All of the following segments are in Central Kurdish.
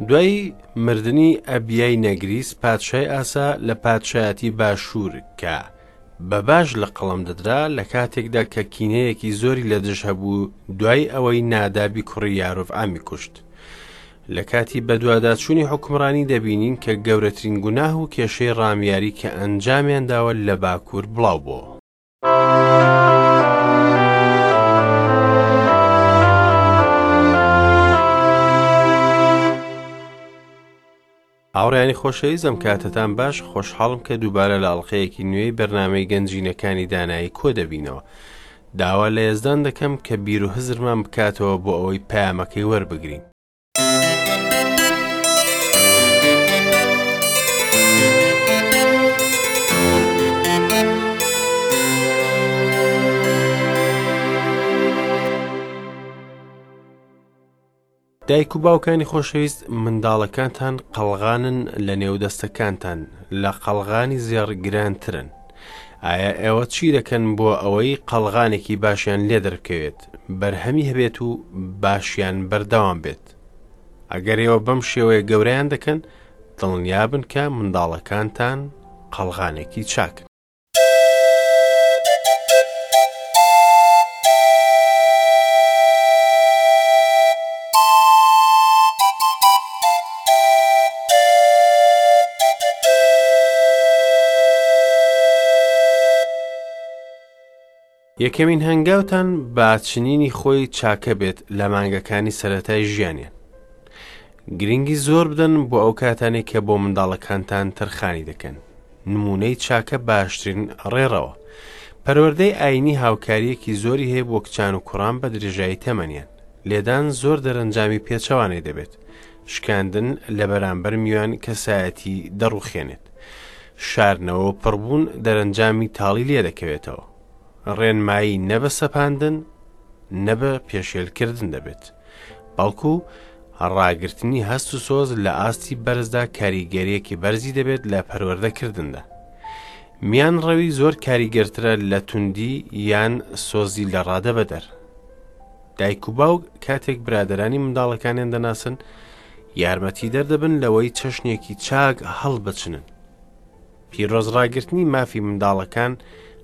دوای مردنی ئەبیای نەگریس پادشای ئاسا لە پادشایەتی باشوور کە بە باش لە قەڵەم دەدرا لە کاتێکدا کە کینەیەکی زۆری لە دژ هەبوو دوای ئەوەی نادابی کوڕی یارۆڤعامی کوشت. لە کاتی بەدواداچوونی حوکمڕانی دەبینین کە گەورەترین گوناه و کێشەی ڕامیاری کە ئەنجامیان داوە لە باکوور بڵاو بۆوە. هاوڕێیانی خۆشەویست ئەم کاتەتان باش خۆشحاڵم کە دووبارە لە ئەڵلقەیەکی نوێی بەرنامەی گەنجینەکانی دانایی کۆ دەبینەوە داوا لە یەزدان دەکەم کە بیر و هزرمان بکاتەوە بۆ ئەوەی پەیامەکەی وەربگرین. دایک و باوکانی خۆشەویست منداڵەکانتان قەڵغانن لە نێو دەستەکانتان لە قەڵغانی زێڕ گرانترن ئایا ئێوە چی دەکەن بۆ ئەوەی قەڵغانێکی باشیان لێ دەربکەوێت بەرهەمی هەبێت و باشیان بەردەوام بێت ئەگەر ئێوە بەم شێوەیە گەورەیان دەکەن دڵنیابن کە منداڵەکانتان قەڵغانێکی چاکن. یەکەمین هەنگاوتان با چنینی خۆی چاکە بێت لە مانگەکانی سەرەتای ژیانیان. گرنگی زۆر بدەن بۆ ئەو کاتانەی کە بۆ منداڵەکانتان تەرخانی دەکەن. نموونەی چاکە باشترین ڕێڕەوە. پەروەردەی ئایینی هاوکارییەکی زۆری هەیە بۆ کچان و کوڕان بە درێژایی تەمەنیان. لێدان زۆر دەرەنجامی پێچەوانەی دەبێت. شکاندن لە بەرامبەر میوان کەسایەتی دەڕوخێنێت. شاردنەوە و پڕبوون دەرەنجامی تاڵی لێدەکەوێتەوە. ڕێنمایی نە بە سەپاندن نە بە پێشێلکردن دەبێت. بەڵکو ڕاگرتنی هەست و سۆز لە ئاستی بەرزدا کاریگەریەکی بەرزی دەبێت لە پەروەردەکردندا. میان ڕەوی زۆر کاریگەرترە لە توندی یان سۆزی لە ڕادە بەدەر. دایک و باوک کاتێک برادەرانی منداڵەکانیان دەناسن یارمەتیدەر دەبن لەوەی چەشنێکی چاک هەڵبچنن. پیرۆز ڕاگرتنی مافی منداڵەکان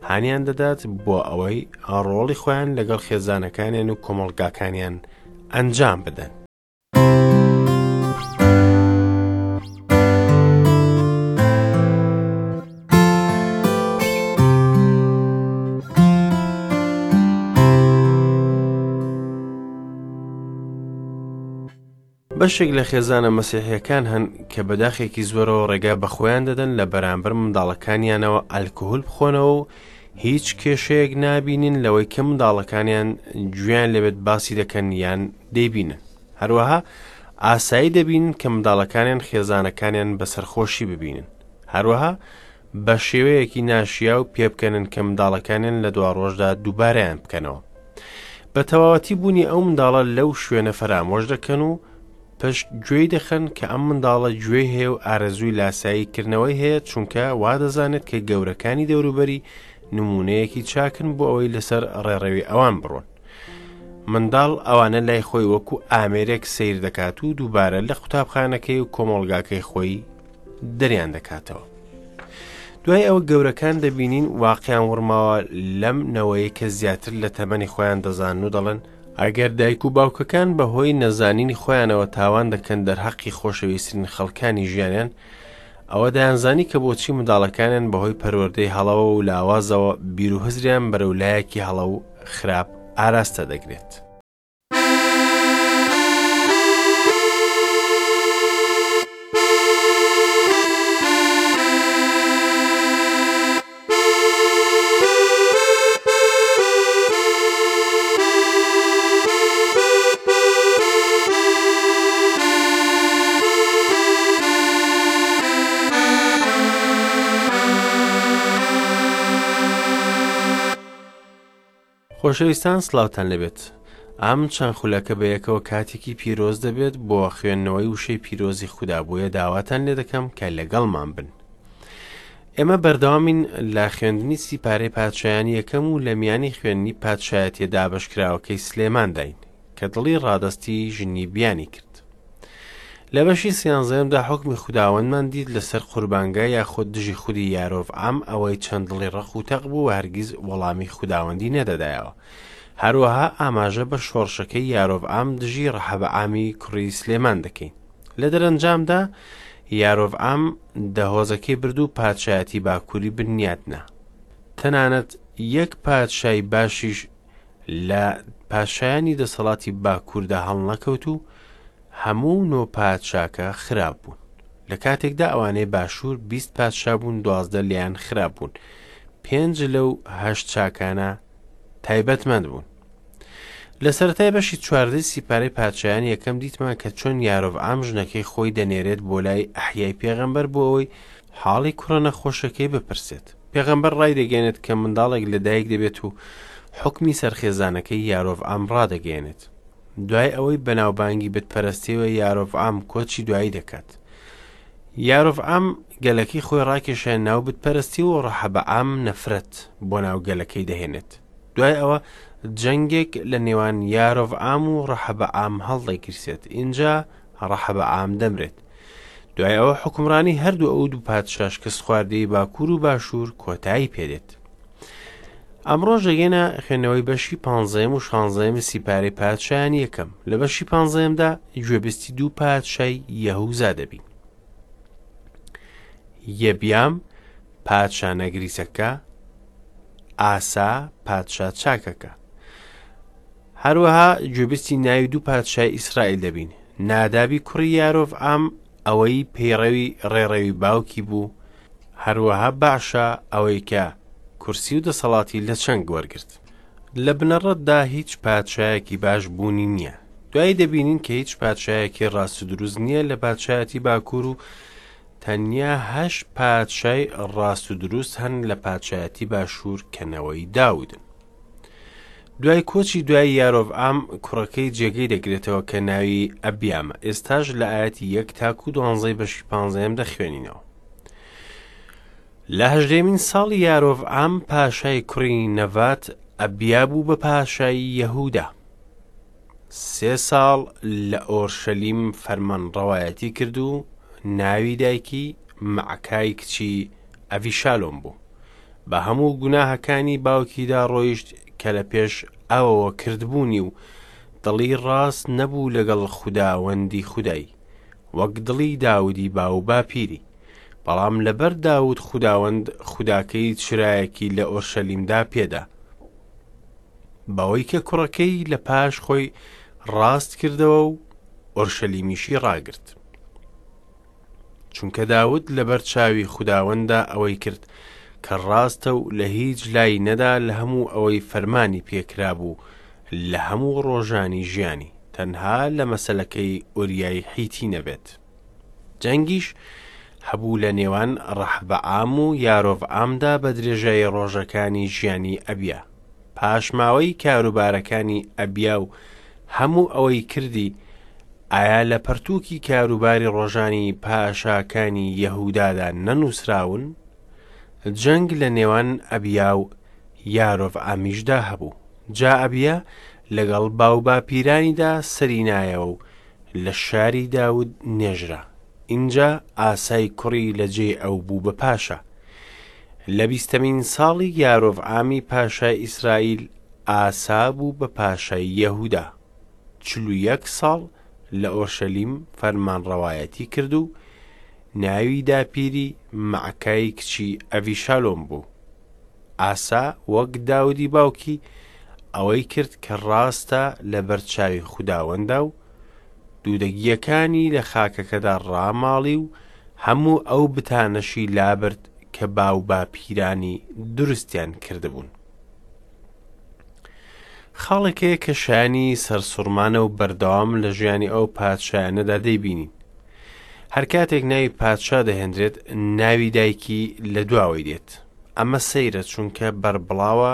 هانیان دەدات بۆ ئەوەی ڕۆڵی خۆیان لەگەڵ خێزانەکانیان و کۆمەڵگاکانیان ئەنجام بدەن. بەشێک لە خێزانە مەسیحیەکان هەن کە بە داخێکی زۆرەوە ڕێگا بە خۆیان دەدەن لە بەرامبەر منداڵەکانیانەوە ئەلکهول بخۆنەوە و هیچ کێشەیەک نابینین لەوەی کە منداڵەکانیان گوێیان لێبێت باسی دەکەن یان دەیبینن هەروەها ئاسایی دەبینن کە منداڵەکانیان خێزانەکانیان بە سەرخۆشی ببینن هەروەها بە شێوەیەکی ناشیاو پێبکەنن کە منداڵەکانیان لە دواڕۆژدا دووبارەیان بکەنەوە. بە تەواوەتی بوونی ئەو منداڵە لەو شوێنە فەرامۆش دەکەن و پشت گوێی دەخەن کە ئەم منداڵە گوێی هەیە و ئارەزووی لاسایی کردنەوەی هەیە چونکە وا دەزانێت کە گەورەکانی دەوروبەری نمونەیەکی چاکن بۆ ئەوەی لەسەر ڕێڕەوی ئەوان بڕۆن. منداڵ ئەوانە لای خۆی وەکو ئامێرێک سەیر دەکات و دووبارە لە قوتابخانەکەی و کۆمەڵگاکەی خۆی دەریان دەکاتەوە. دوای ئەوە گەورەکان دەبینین واقیان وڕماوە لەم نەوەیە کە زیاتر لە تەمەنی خۆیان دەزانن و دەڵێن ئەگەر دایک و باوکەکان بە هۆی نەزانینی خۆیانەوە تاوان دەکەن دەرهەقی خۆشەویسترین خەڵکانی ژیانیان ئەوە دەیانزانی کە بۆچی منداڵەکانیان بەهۆی پەروەردەی هەڵەوە و لاوازەوە بیر و هزریان بەرەو لایەکی هەڵە و خراپ ئاراستە دەگرێت. خۆشەویستان سڵاوتان لێبێت ئەم چەند خولەکە بە یەکەوە کاتێکی پیرۆز دەبێت بۆ خوێندنەوەی وشەی پیرۆزی خودا بۆیە داواتان لێ دەکەم کە لەگەڵمان بن ئێمە بەردەوامین لە خوێندنی سیپارەی پادشایانی یەکەم و لە میانی خوێندنی پادشایەتیە دابەشکراوەکەی سلێمانداین کە دڵی ڕادەستی ژنی بیانی کرد. لە بەشی سیانزەیەمدا حوکمی خوداوەندمان دیت لەسەر قوربانگا یاخود دژی خودی یارۆڤعام ئەوەی چەند دڵی ڕەق و تەق بوو و هەرگیز وەڵامی خوداوەندی نەدەدایەوە. هەروەها ئاماژە بە شۆڕشەکەی یارۆڤعام دژی ڕەحەبەعامی کوڕی سلێمان دەکەین. لە دەرەنجامدا یارۆڤعام دە هۆزەکەی برد و پادشایەتی باکووری بنیاتنا. تەنانەت یەک پادشای باشیش لە پادشایانی دەسەڵاتی باکووردا هەڵنەکەوت و هەموو نۆ پادشاکە خراپ بوون. لە کاتێکدا ئەوانەی باشوور 20 پادشا بوون 12 لێیان خراپ بوون. پێنج لەو هەشت چاکانە تایبەتمەند بوون. لە سەرەتای بەشی چواردەی سیپارەی پادشایان یەکەم دیتمان کە چۆن یارۆڤعام ژنەکەی خۆی دەنێرێت بۆ لای ئەحیای پێغەمبەر بۆ ئەوەی حاڵی کوڕە نەخۆشەکەی بپرسێت. پێغەمبەر ڕایدەگەیەنێت کە منداڵێک لەدایک دەبێت و حوکمی سەر خێزانەکەی یارۆڤعام ڕادەگەیەنێت. دوای ئەوەی بەناوبانگی بتپەرستیەوە یارۆڤعام کۆچی دوایی دەکات. یارۆڤعام گەلەکەی خۆی ڕاکێشایە ناو بتپەرستی و ڕەحەبەعام نەفرەت بۆ ناو گەلەکەی دەهێنێت. دوای ئەوە جەنگێک لە نێوان یارۆڤعام و ڕەحەبەعام هەڵدەگیرسێت، ئینجا ڕەحەبەعام دەمرێت. دوای ئەوە حوکمڕانی هەردوو ئەو دوو پادشا شکستخواردەی باکوور و باشوور کۆتایی پێدێت. ئەمڕۆش دەگەینە خوێندنەوەی بەشی پانزەیەم و شانزەیەمی سیپارەی پادشایانی یەکەم. لە بەشی پانزەیەمدا گوێبیستی دوو پادشای یەهوزا دەبین. یەبیام پادشا نەگریسەکە، ئاسا پادشا چاکەکە. هەروەها گوێبیستی ناوی دوو پادشای ئیسرائیل دەبین، نادابی کوڕی یارۆڤعام ئەوەی پەیڕەوی ڕێڕەوی باوکی بوو، هەروەها بەعشا ئەوەی کە کورسی و دەسەڵاتی لە چنگ وەرگرت. لە بنەڕەتدا هیچ پادشایەکی باش بوونی نییە. دوایی دەبینین کە هیچ پادشایەکی ڕاست و دروست نییە لە پادشایەتی باکوور و تەنیا هەشت پادشای ڕاست و دروست هەن لە پادشایەتی باشوور کە نەوەی داودن. دوای کۆچی دوای یارۆڤعام کوڕەکەی جێگەی دەگرێتەوە کە ناوی ئەبیامە. ئێستاش لە ئایەتی یەک تاکو دوانزەی بەشی پانزەیەم دەخوێنینەوە. لە هەژدەیەمین ساڵی یارۆڤعام پاشای کوڕی نەڤات ئەبیا بوو بە پاشای یەهودا. سێ ساڵ لە ئۆرشەلیم فەرمانڕەوایەتی کرد و ناوی دایکی مەعکای کچی ئەڤیشالۆم بوو. بە هەموو گوناهەکانی باوکیدا ڕۆیشت کە لە پێش ئەوەوە کردبوونی و دڵی ڕاست نەبوو لەگەڵ خوداوەندی خودای، وەک دڵی داودی باوباپیری. بەڵام لەبەر داود خوداوەند خوداکەی چرایەکی لە ئۆرشەلیمدا پێدا، بەوەی کە کوڕەکەی لە پاش خۆی ڕاست کردەوە و ئۆرشەلیمیشی ڕاگرت. چونکە داود لەبەر چاوی خوداوەنددا ئەوەی کرد کە ڕاستە و لە هیچ لای نەدا لە هەموو ئەوەی فەرمانی پێکرابوو لە هەموو ڕۆژانی ژیانی، تەنها لە مەسەلەکەی ئوریای حیتی نەبێت. جەنگیش هەبوو لە نێوان ڕەحبەعام و یارۆڤعامدا بە درێژایی ڕۆژەکانی ژیانی ئەبیا. پاشماوەی کاروبارەکانی ئەبیا و هەموو ئەوەی کردی، ئایا لە پەرتووکی کاروباری ڕۆژانی پاشاکانی یەهودادا نەنووسراون؟ جەنگ لە نێوان ئەبیا و یارۆڤعامیشدا هەبوو. جا ئەبیا لەگەڵ باوباپیرانیدا سەری نایەوە و لە شاری داود نێژرا. ئینجا ئاسای کوڕی لە جێی ئەو بوو بە پاشا. لە بیستەمین ساڵی یارۆڤعامی پاشای ئیسرائیل، ئاسا بوو بە پاشای یەهودا. 41 ساڵ لە ئۆرشەلیم فەرمانڕەوایەتی کرد و ناوی داپیری مەعکای کچی ئەڤیشالۆم بوو. ئاسا وەک داودی باوکی ئەوەی کرد کە ڕاستە لەبەر چاوی خوداوەندا و دوودەگییەکانی لە خاکەکەدا ڕاماڵی و هەموو ئەو بتانەشی لابرد کە باوباپیرانی دروستیان کردبوون. خاڵێک هەیە کە شایانی سەرسوڕمانە و بەردەوام لە ژیانی ئەو پادشایانەدا دەیبینین. هەر کاتێک ناوی پادشا دەهێنرێت ناوی دایکی لە دواوەی دێت. ئەمە سەیرە چونکە بەربڵاوە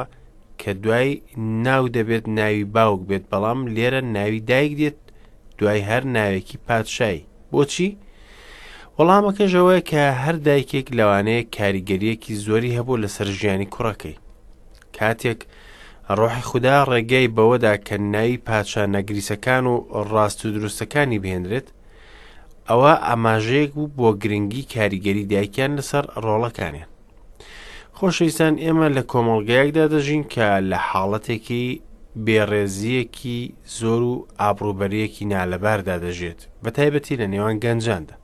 کە دوای ناو دەبێت ناوی باوک بێت بەڵام لێرە ناوی دایک دێت دوای هەر ناوێکی پادشایی. بۆچی؟ وەڵامەکەش ئەوەیە کە هەر دایکێک لەوانەیە کاریگەریەکی زۆری هەبوو لەسەر ژیانی کوڕەکەی. کاتێک ڕۆحی خودا ڕێگای بەوەدا کە ناوی پادشا نەگریسەکان و ڕاست و دروستەکانی بهێنرێت، ئەوە ئاماژەیەک بوو بۆ گرنگی کاریگەری دایکیان لەسەر ڕۆڵەکانیان. خۆشەویستان ئێمە لە کۆمەڵگایەکدا دەژین کە لە حاڵەتێکی بێڕێزییەکی زۆر و ئابڕووبەرییەکی نالەباردا دەژێت، بە تایبەتی لە نێوان گەنجاندا.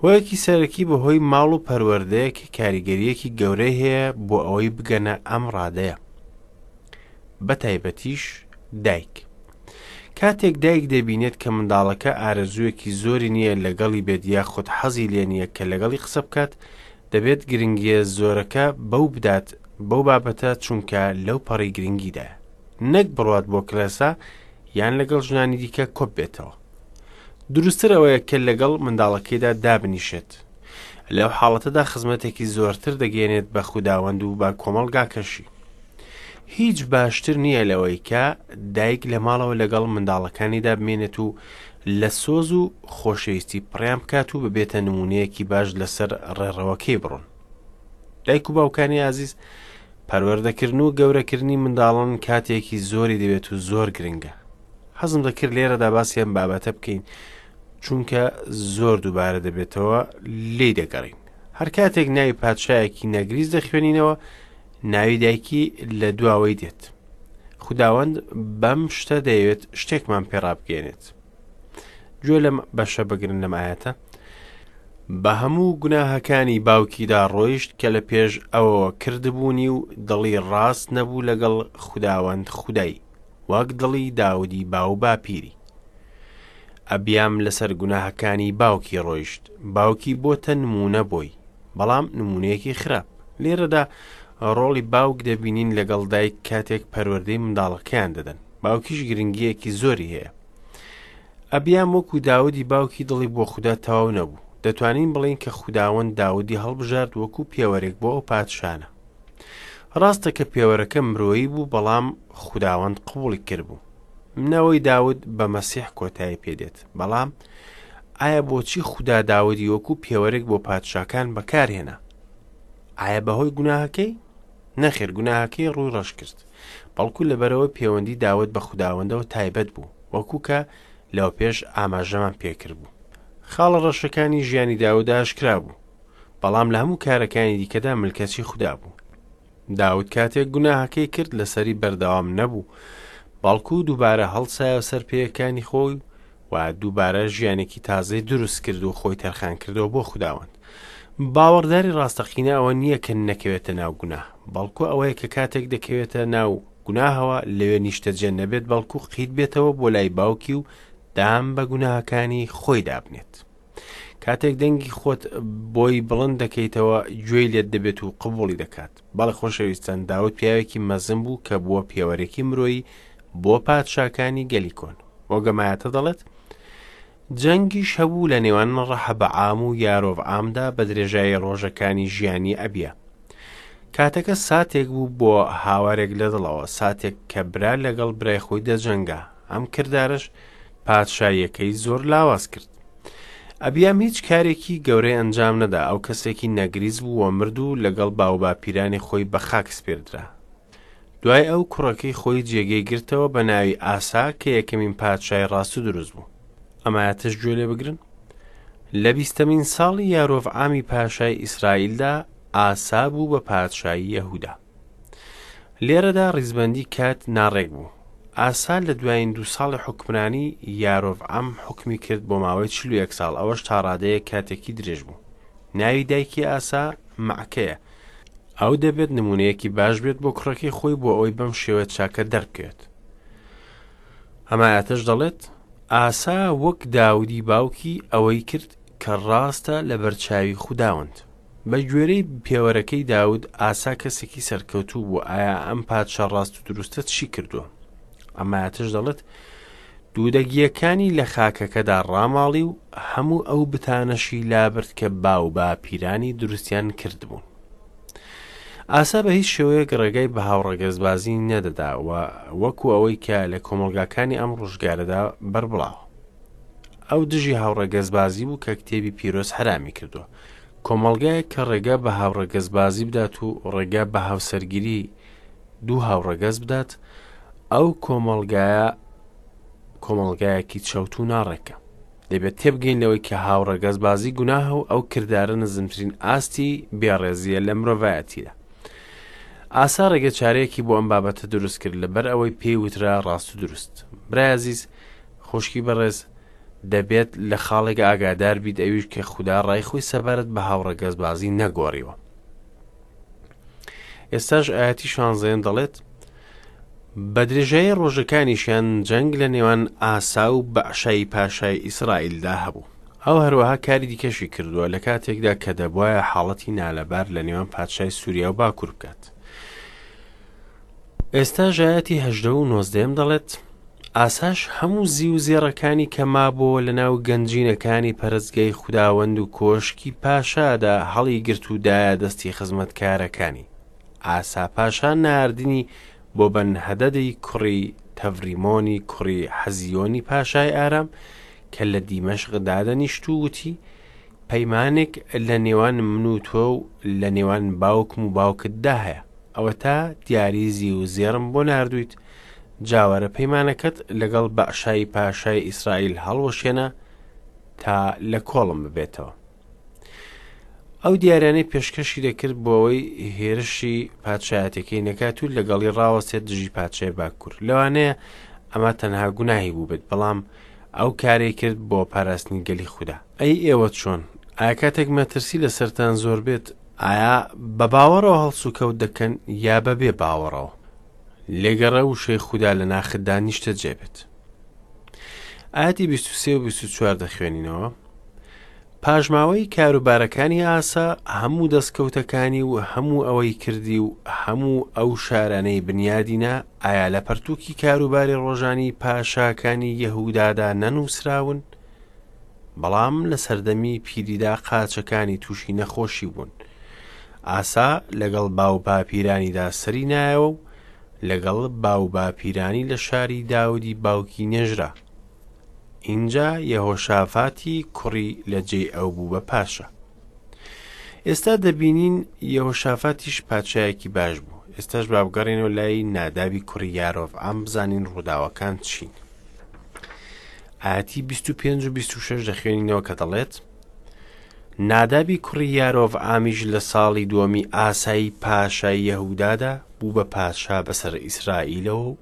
هۆیەکی سەرەکی بەهۆی ماڵ و پەروەردەیە کە کاریگەرییەکی گەورەی هەیە بۆ ئەوەی بگەنە ئەم ڕادەیە. بە تایبەتیش دایک. کاتێک دایک دەبینێت کە منداڵەکە ئارەزوویەکی زۆری نییە لەگەڵی بێت یاخود حەزی لێ نییە کە لەگەڵی قسە بکات، دەبێت گرنگییە زۆرەکە بەو بدات بەو بابەتە چونکە لەو پەڕی گرنگیدایە. نەک بڕوات بۆ کڵێسا یان لەگەڵ ژنانی دیکە کۆببێتەوە. دروستتر ئەوەیە کە لەگەڵ منداڵەکەیدا دابنیشێت. لەو حاڵەتەدا خزمەتێکی زۆرتر دەگەیەنێت بە خوداوەند و بە کۆمەڵگاکەشی. هیچ باشتر نییە لەوەی کە دایک لە ماڵەوە لەگەڵ منداڵەکانیدا بمێنێت و لە سۆز و خۆشەویستی پڕیان بکات و ببێتە نمونەیەکی باش لەسەر ڕێڕەوەکەی بڕۆن. دایک و باوکانی ئازیز پەروەردەکردن و گەورەکردنی منداڵان کاتێکی زۆری دەوێت و زۆر گرنگە. حەزم دەکرد لێرەدا باسی ئەم بابەتە بکەین چونکە زۆر دووبارە دەبێتەوە لێی دەگەڕین. هەر کاتێک ناوی پادشایەکی نەگریس دەخوێنینەوە ناوی دایکی لە دواوەی دێت. خوداوەند بەم شتە دەیەوێت شتێکمان پێڕابگەێنێت. گوێ لەم بەشە بگرن لەم ئاەتە بە هەموو گوناهەکانی باوکیدا ڕۆیشت کە لە پێش ئەوەوە کردبوونی و دڵی ڕاست نەبوو لەگەڵ خوداوەند خودای وەک دڵی داودی باو باپیری. ئەبیام لەسەر گوناهەکانی باوکی ڕۆیشت، باوکی بۆتە نموونە بۆی، بەڵام نموونەیەکی خراپ. لێرەدا ڕۆڵی باوک دەبینین لەگەڵ دایک کاتێک پەروەردەی منداڵەکەیان دەدەن. باوکیش گرنگییەکی زۆری هەیە. ئەبیام وەکو داودی باوکی دڵی بۆ خودا تەواو نەبوو. دەتوانین بڵێین کە خوداوەند داودی هەڵبژارد وەکو پێوەرێک بۆ ئەو پادشانە. ڕاستە کە پێوەرەکە مرۆیی بوو بەڵام خوداوەند قبوڵی کردبوو. نەوەی داود بە مەسیح کۆتایی پێدێت. بەڵام ئایا بۆچی خودا داودی وەکو پێوەرێک بۆ پادشاکان بەکارهێنا؟ ئایا بەهۆی گوناهەکەی؟ نەخێر گوناهەکەی ڕووی ڕەش کرد. بەڵکو لەبەرەوە پێوەندی داود بە خوداوەندەوە تایبەت بوو، وەکو کە لەوەپێش ئاماژەمان پێکردبوو. خاڵە ڕەشەکانی ژیانی داود ئاشکرا بوو. بەڵام لە هەموو کارەکانی دیکەدا ملکەچی خودا بوو. داود کاتێک گوناهەکەی کرد لەسەری بەردەوام نەبوو، بەڵکو دووبارە هەڵسایەوە سەر پێیەکانی خۆی و دووبارە ژیانێکی تازەی دروست کرد و خۆی تەرخان کردەوە بۆ خوداوەند. باوەڕداری ڕاستەقینە ئەوە نییە کە نەکەوێتە ناو گوناه، بەڵکو ئەوەیە کە کاتێک دەکەوێتە ناو گوناهەوە لەوێ نیشتەجێ نەبێت، بەڵکو قیت بێتەوە بۆ لای باوکی و دام بە گوناهەکانی خۆی دابنێت. کاتێک دەنگی خۆت بۆی بڵند دەکەیتەوە گوێی لێت دەبێت و قبوڵی دەکات. بەڵێ خۆشەویستان داود پیاوێکی مەزن بوو کە بووە پێوەرێکی مرۆیی بۆ پادشاکانی گەلی کۆن. وەک ئەم ئایەتە دەڵێت جەنگیش هەبوو لە نێوان ڕەحەبەعام و یارۆڤعامدا بە درێژایی ڕۆژەکانی ژیانی ئەبیا. کاتەکە ساتێک بوو بۆ هاوارێک لە دڵەوە، ساتێک کە برا لەگەڵ برای خۆی دەجەنگا. ئەم کردارەش پادشاییەکەی زۆر لاواز کرد. ئەبیام هیچ کارێکی گەورەی ئەنجام نەدا، ئەو کەسێکی نەگریس بوو و مرد و لەگەڵ باوباپیرانی خۆی بە خاک سپێردرا. دوای ئەو کوڕەکەی خۆی جێگەی گرتەوە بە ناوی ئاسا کە یەکەمین پادشای ڕاست و دروست بوو. ئەم ئایەتەش گوێ لێ بگرن. لە بیستەمین ساڵی یارۆڤعامی پاشای ئیسرائیلدا ئاسا بوو بە پادشای یەهودا. لێرەدا ڕیزبەندی کات ناڕێک بوو. ئاسا لە دوایین دوو ساڵی حوکمرانی یارۆڤعام حوکمی کرد بۆ ماوەی 41 ساڵ، ئەوەش تا ڕادەیەک کاتێکی درێژ بوو. ناوی دایکی ئاسا مەعکەیە. ئەو دەبێت نموونەیەکی باش بێت بۆ کوڕەکەی خۆی بۆ ئەوەی بەم شێوە چاکە دەربکەوێت. ئەم ئایەتەش دەڵێت، ئاسا وەک داودی باوکی ئەوەی کرد کە ڕاستە لەبەرچاوی خوداوەند. بە گوێرەی پێوەرەکەی داود، ئاسا کەسێکی سەرکەوتوو بوو. ئایا ئەم پادشا ڕاست و دروستە چی کردووە؟ ئەم ئایەتەش دەڵێت، دوودەگییەکانی لە خاکەکەدا ڕاماڵی و هەموو ئەو بتانەشی لابرد کە باوباپیرانی دروستیان کردبوون. ئاسا بە هیچ شێوەیەک ڕێگای بە هاوڕەگەزبازی نەدەدا و وەکو ئەوەی کە لە کۆمەڵگاکانی ئەم ڕۆژگارەدا بەربڵاوە. ئەو دژی هاوڕەگەزبازی بوو کە کتێبی پیرۆز حەرامی کردووە. کۆمەڵگایەک کە ڕێگا بە هاوڕەگەزبازی بدات و ڕێگا بە هاوسەرگیری دوو هاوڕەگەز بدات، ئەو کۆمەڵگایە کۆمەڵگایەکی چەوت و ناڕێکە. دەبێت تێبگەین لەوەی کە هاوڕەگەزبازی گوناهە و ئەو کردارە نزمترین ئاستی بێڕێزییە لە مرۆڤایەتیدا. ئاسا ڕێگە چارەیەکی بۆ ئەم بابەتە دروست کرد لەبەر ئەوەی پێی وترا ڕاست و دروست. برای ئازیز، خوشکی بەڕێز، دەبێت لە خاڵێک ئاگادار بیت ئەویش کە خودا ڕای خۆی سەبارەت بە هاوڕەگەزبازی نەگۆڕیوە. ئێستاش ئاەتی شانزەیەم دەڵێت بە درێژایی ڕۆژەکانیشیان جەنگ لە نێوان ئاسا و بەعشای پاشای ئیسرائیلدا هەبوو. ئەو هەروەها کاری دیکەشی کردووە لە کاتێکدا کە دەبوایە حاڵەتی نالەبار لە نێوان پادشای سووریا و باکوور بکات. ئێستاش ئایەتی هەژدە و نۆزدەیەم دەڵێت، ئاساش هەموو زیو و زێڕەکانی کە مابۆوە لەناو گەنجینەکانی پەرستگای خوداوەند و کۆشکی پاشادا هەڵیگرت و دایە دەستی خزمەتکارەکانی. ئاسا پاشا ناردنی بۆ بەنهەدەدی کوڕی تەڤریمۆنی کوڕی حەزیۆنی پاشای ئارام کە لە دیمەشق دادەنیشت و وتی، پەیمانێک لە نێوان من و تۆ و لە نێوان باوکم و باوکتدا هەیە. ئەوەتا دیاری زیو و زێڕم بۆ ناردوویت، جا وەرە پەیمانەکەت لەگەڵ بەعشای پاشای ئیسرائیل هەڵوەشێنە تا لە کۆڵم ببێتەوە. ئەو دیاریانەی پێشکەشی دەکرد بۆ ئەوەی هێرشی پادشایەتەکەی نەکات و لەگەڵی ڕاوەستێت دژی پادشای باکوور. لەوانەیە ئەمە تەنها گوناهی بووبێت، بەڵام ئەو کارەی کرد بۆ پاراستنی گەلی خودا. ئەی ئێوە چۆن؟ ئایا کاتێک مەترسی لەسەرتان زۆر بێت، ئایا بە باوەڕەوە هەڵسوکەوت دەکەن یا بە بێ باوەڕەوە؟ لێگەڕێ وشەی خودا لە ناختدا نیشتەجێ بێت. ئایەتی 23 و 24 دەخوێنینەوە. پاشماوەی کاروبارەکانی ئاسا، هەموو دەستکەوتەکانی و هەموو ئەوەی کردی و هەموو ئەو شارانەی بنیادی نا، ئایا لە پەرتووکی کاروباری ڕۆژانی پاشاکانی یەهودادا نەنووسراون؟ بەڵام لە سەردەمی پیریدا قاچەکانی تووشی نەخۆشی بوون. ئاسا لەگەڵ باوباپیرانیدا سەری نایەوە و لەگەڵ باوباپیرانی لە شاری داودی باوکی نێژرا. ئینجا یەهۆشافاتی کوڕی لە جێی ئەو بوو بە پاشا. ئێستا دەبینین یەهۆشافاتیش پادشایەکی باش بوو. ئێستاش با بگەڕێنەوە لای نادابی کوڕی یارۆڤعام بزانین ڕووداوەکان چین. ئاەتی 25 و 26 دەخوێنینەوە کە دەڵێت نادابی کوڕی یارۆڤعامیش لە ساڵی دووەمی ئاسایی پاشای یەهودادا بوو بە پادشا بەسەر ئیسرائیلەوە و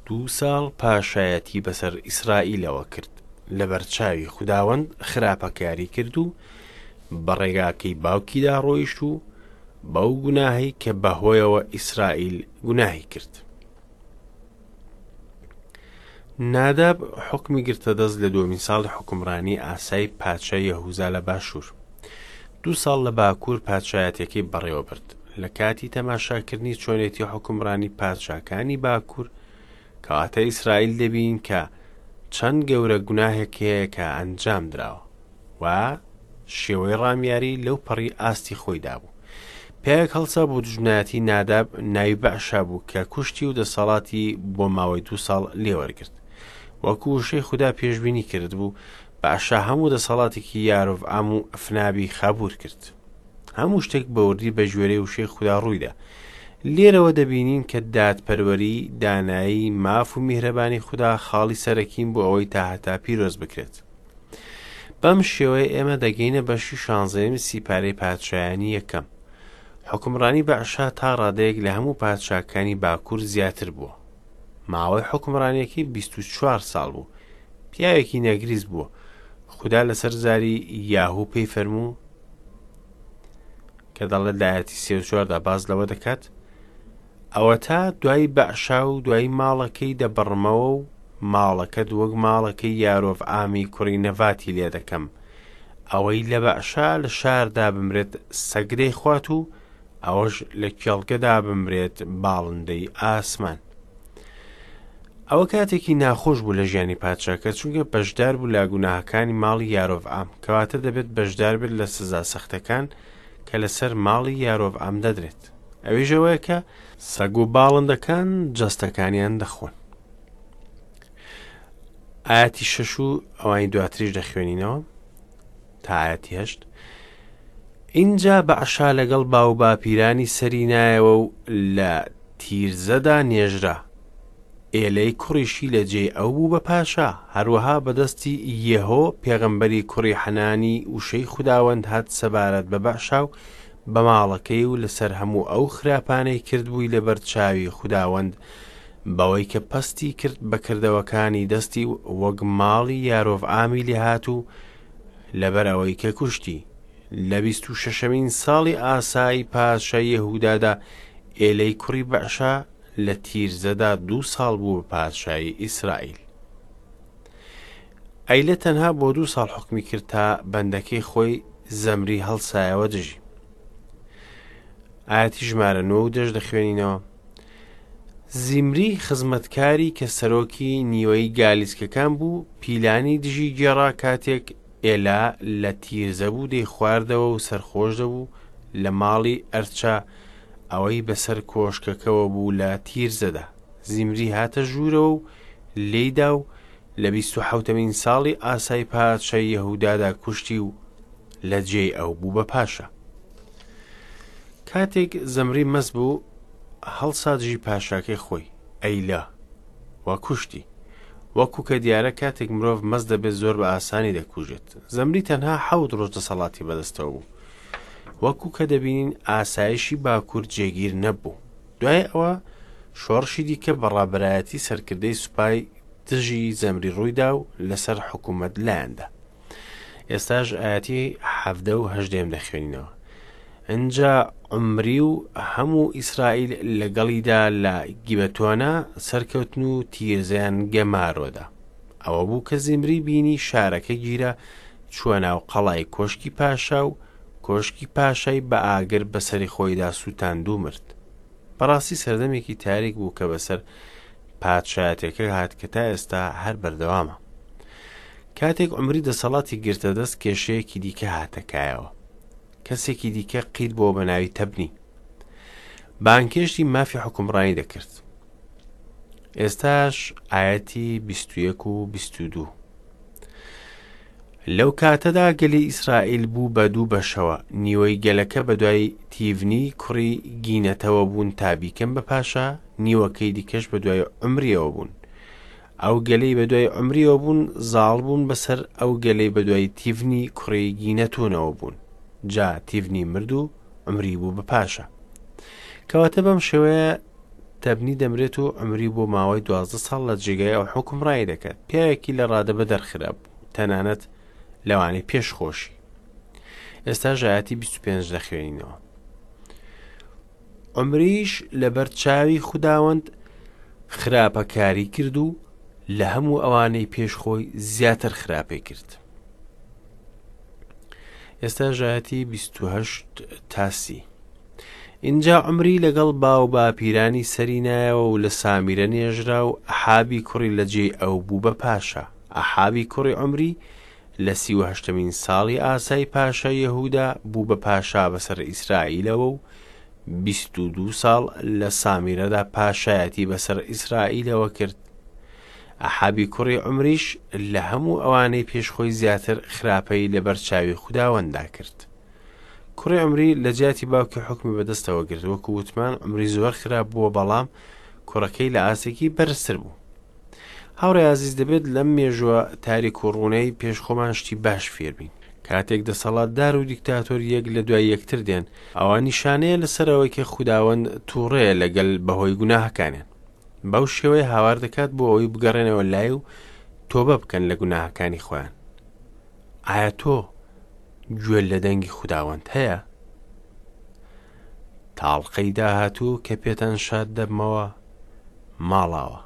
دوو ساڵ پاشایەتی بەسەر ئیسرائیلەوە کرد، لەبەرچاوی خوداوەند خراپەکاری کرد و بە ڕێگاکەی باوکیدا ڕۆیشت و بەو گوناهەی کە بەهۆیەوە ئیسرائیل گوناهی کرد. ناداب حوکمی گرتە دەست لە دووەمین ساڵی حوکمڕانی ئاسای پادشای یەهوزا لە باشوور. دوو ساڵ لە باکوور پادشایەتیەکەی بەڕێوە برد. لە کاتی تەماشاکردنی چۆنێتی حوکمڕانی پادشاکانی باکوور، کەواتە ئیسرائیل دەبین کە چەند گەورە گوناهێک هەیە کە ئەنجام دراوە و شێوەی ڕامیاری لەو پەڕی ئاستی خۆیدا بوو. پیاوێک هەڵسا بۆ دوژمنایەتی ناداب ناوی بەعشا بوو کە کوشتی و دەسەڵاتی بۆ ماوەی دوو ساڵ لێوەرگرت. وەکو وشەی خودا پێشبینی کردبوو، بەعشا هەموو دەسەڵاتێکی یارۆڤعام و ئەفنابی خابوور کرد. هەموو شتێک بە وردی بە گوێرەی وشەی خودا ڕوویدا. لێرەوە دەبینین کە دادپەروەری، دانایی، ماف و میهرەبانی خودا خاڵی سەرەکین بۆ ئەوەی تا هەتا پیرۆز بکرێت. بەم شێوەیە ئێمە دەگەینە بەشی شانزەیەمی سیپارەی پادشایانی یەکەم. حوکمڕانی بەعشا تا ڕادەیەک لە هەموو پادشاکانی باکوور زیاتر بووە. ماوەی حوکمڕانیەکەی 24 ساڵ بوو. پیاوێکی نەگریس بووە. خودا لەسەر زاری یاهو پێی فەرموو کە دەڵێت لە ئایەتی 34دا باس لەوە دەکات ئەوەتا دوای بەعشا و دوای ماڵەکەی دەبڕمەوە و ماڵەکەت وەک ماڵەکەی یارۆڤعامی کوڕی نەڤاتی لێ دەکەم ئەوەی لە بەعشا لە شاردا بمرێت سەگ دەیخوات و ئەوەش لە کێڵگەدا بمرێت باڵندەی ئاسمان. ئەوە کاتێکی ناخۆش بوو لە ژیانی پادشاکە چونکە بەشدار بوو لە گوناهەکانی ماڵی یارۆڤعام کەواتە دەبێت بەشدار بێت لە سزا سەختەکان کە لەسەر ماڵی یارۆڤعام دەدرێت ئەویش ئەوەیە کە سەگ و باڵندەکان جەستەکانیان دەخۆن. ئاەتی شەش و ئەوانی دواتریش دەخوێنینەوە تا ئاەتی هەشت ئینجا بەعشا لەگەڵ باوباپیرانی سەری نایەوە و لە تیرزەدا نێژرا. ئێلەی کوڕیشی لە جێی ئەو بوو بە پاشا. هەروەها بە دەستی یێهۆ پێغەمبەری کوڕی حەنانی وشەی خوداوەند هات سەبارەت بە بەعشا و بە ماڵەکەی و لەسەر هەموو ئەو خراپانەی کردبووی لەبەر چاوی خوداوەند بەوەی کە پەستی کرد بە کردەوەکانی دەستی و وەک ماڵی یارۆڤعامی لێهات و لەبەر ئەوەی کە کوشتی. لە 26مین ساڵی ئاسای پادشای یەهودادا ئێلەی کوڕی بەعشا لە تیرزەدا دوو ساڵ بوو بە پادشای ئیسرائیل. ئەیلە تەنها بۆ دوو ساڵ حوکمی کرد تا بەندەکەی خۆی زەمری هەڵسایەوە دژی. ئاەتی ژمارە نۆ و دەش دەخوێنینەوە. زیمری خزمەتکاری کە سەرۆکی نیوەی گالیسکەکان بوو پیلانی دژی گێڕا کاتێک ئێلا لە تیرزە بوو دەیخواردەوە و سەرخۆش دەبوو لە ماڵی ئەرچا ئەوەی بەسەر کۆشکەکەوە بوو لە تیرزەدا. زیمری هاتە ژوورەوە و لێیدا و لە 27مین ساڵی ئاسای پادشای یەهودادا کوشتی و لە جێی ئەو بوو بە پاشا. کاتێک زەمری مەست بوو هەڵسا دژی پاشاکەی خۆی، ئەیلا، و کوشتی. وەکو کە دیارە کاتێک مرۆڤ مەست دەبێت زۆر بە ئاسانی دەکوژێت. زەمری تەنها حەوت ڕۆژ دەسەڵاتی بەدەستەوە بوو. وەکو کە دەبینین ئاسایشی باکوور جێگیر نەبوو. دوای ئەوە شۆڕشی دیکە بە ڕابەرایەتی سەرکردەی سوپای دژی زەمری ڕوویدا و لەسەر حکوومەت لایاندا. ئێستاش ئاەتی حەڤدە و هەژدەیەم دەخوێنینەوە. ئینجا عومری و هەموو ئیسرائیل لەگەڵیدا لە گیبەتۆنە سەرکەوتن و تیرزەیان گەمارۆدا. ئەوە بوو کە زیمری بینی شارەکە گیرا، چووە ناو قەڵای کۆشکی پاشا و کۆشکی پاشای بە ئاگر بەسەری خۆیدا سووتاند و مرد. بەڕاستی سەردەمێکی تاریک بوو کە بەسەر پادشایەتەکە هات کە تا ئێستا هەر بەردەوامە. کاتێک عومری دەسەڵاتی گرتە دەست کێشەیەکی دیکە هاتە کایەوە. کەسێکی دیکە قیت بۆ بە ناوی تەبنی. بانکێشتی مافی حکومڕانی دەکرد. ئێستاش ئاەتی 21 و 22. لەو کاتەدا گەلی ئیسرائیل بوو بە دوو بەشەوە، نیوەی گەلەکە بەدوای تیڤنی کوڕی گینەتەوە بوون تا بیکەن بە پاشا، نیوەکەی دیکەش بەدوای عومریەوە بوون. ئەو گەلەی بەدوای عومریەوە بوون زاڵ بوون بەسەر ئەو گەلەی بەدوای تیڤنی کوڕی گینەتونەوە بوون. جا تیڤنی مرد و عومری بوو بە پاشا. کەواتە بەم شێوەیە تەبنی دەمرێت و عومری بۆ ماوەی 12 ساڵ لە جێگای ئەو حوکمڕانی دەکات. پیاوێکی لە ڕادە بەدەر خراپ بوو، تەنانەت لەوانەی پێش خۆشی. ئێستا ژایەتی 25 دەخوێنینەوە. عومریش لەبەر چاوی خوداوەند خراپەکاری کرد و لە هەموو ئەوانەی پێش خۆی زیاتر خراپەی کرد. ئێستا ژایەتی 28 تا 30. ئینجا عومری لەگەڵ باو باپیرانی سەری نایەوە و لە سامیرە نێژرا و ئەحابی کوڕی لە جێی ئەو بوو بە پاشا. ئەحابی کوڕی عومری لە 38مین ساڵی ئاسای پاشای یەهودا بوو بە پاشا بەسەر ئیسرائیلەوە و 22 ساڵ لە سامیرەدا پاشایەتی بەسەر ئیسرائیلەوە کرد. ئەحابی کوڕی عومریش لە هەموو ئەوانەی پێش خۆی زیاتر خراپەی لەبەر چاوی خوداوەندا کرد. کوڕی عومری لە جیاتی باوکی حوکمی بەدەستەوە گرت. وەکو وتمان عومری زۆر خراپ بووە، بەڵام کوڕەکەی لە ئاستێکی بەرزتر بوو. هاوڕێ ئازیز، دەبێت لەم مێژووە تاریک و ڕوونەی پێش خۆمان شتی باش فێربین. کاتێک دەسەڵاتدار و دیکتاتۆر یەک لە دوای یەکتر دێن، ئەوە نیشانەیە لەسەر ئەوەی کە خوداوەند تووڕەیە لەگەل بەهۆی گوناهەکانیان. بەو شێوەیە هاوار دەکات بۆ ئەوەی بگەڕێنەوە لای و تۆبە بکەن لە گوناهەکانی خۆیان. ئایا تۆ گوێ لە دەنگی خوداوەند هەیە؟ تاڵقەی داهاتوو کە پێتان شاد دەبمەوە، ماڵاوە.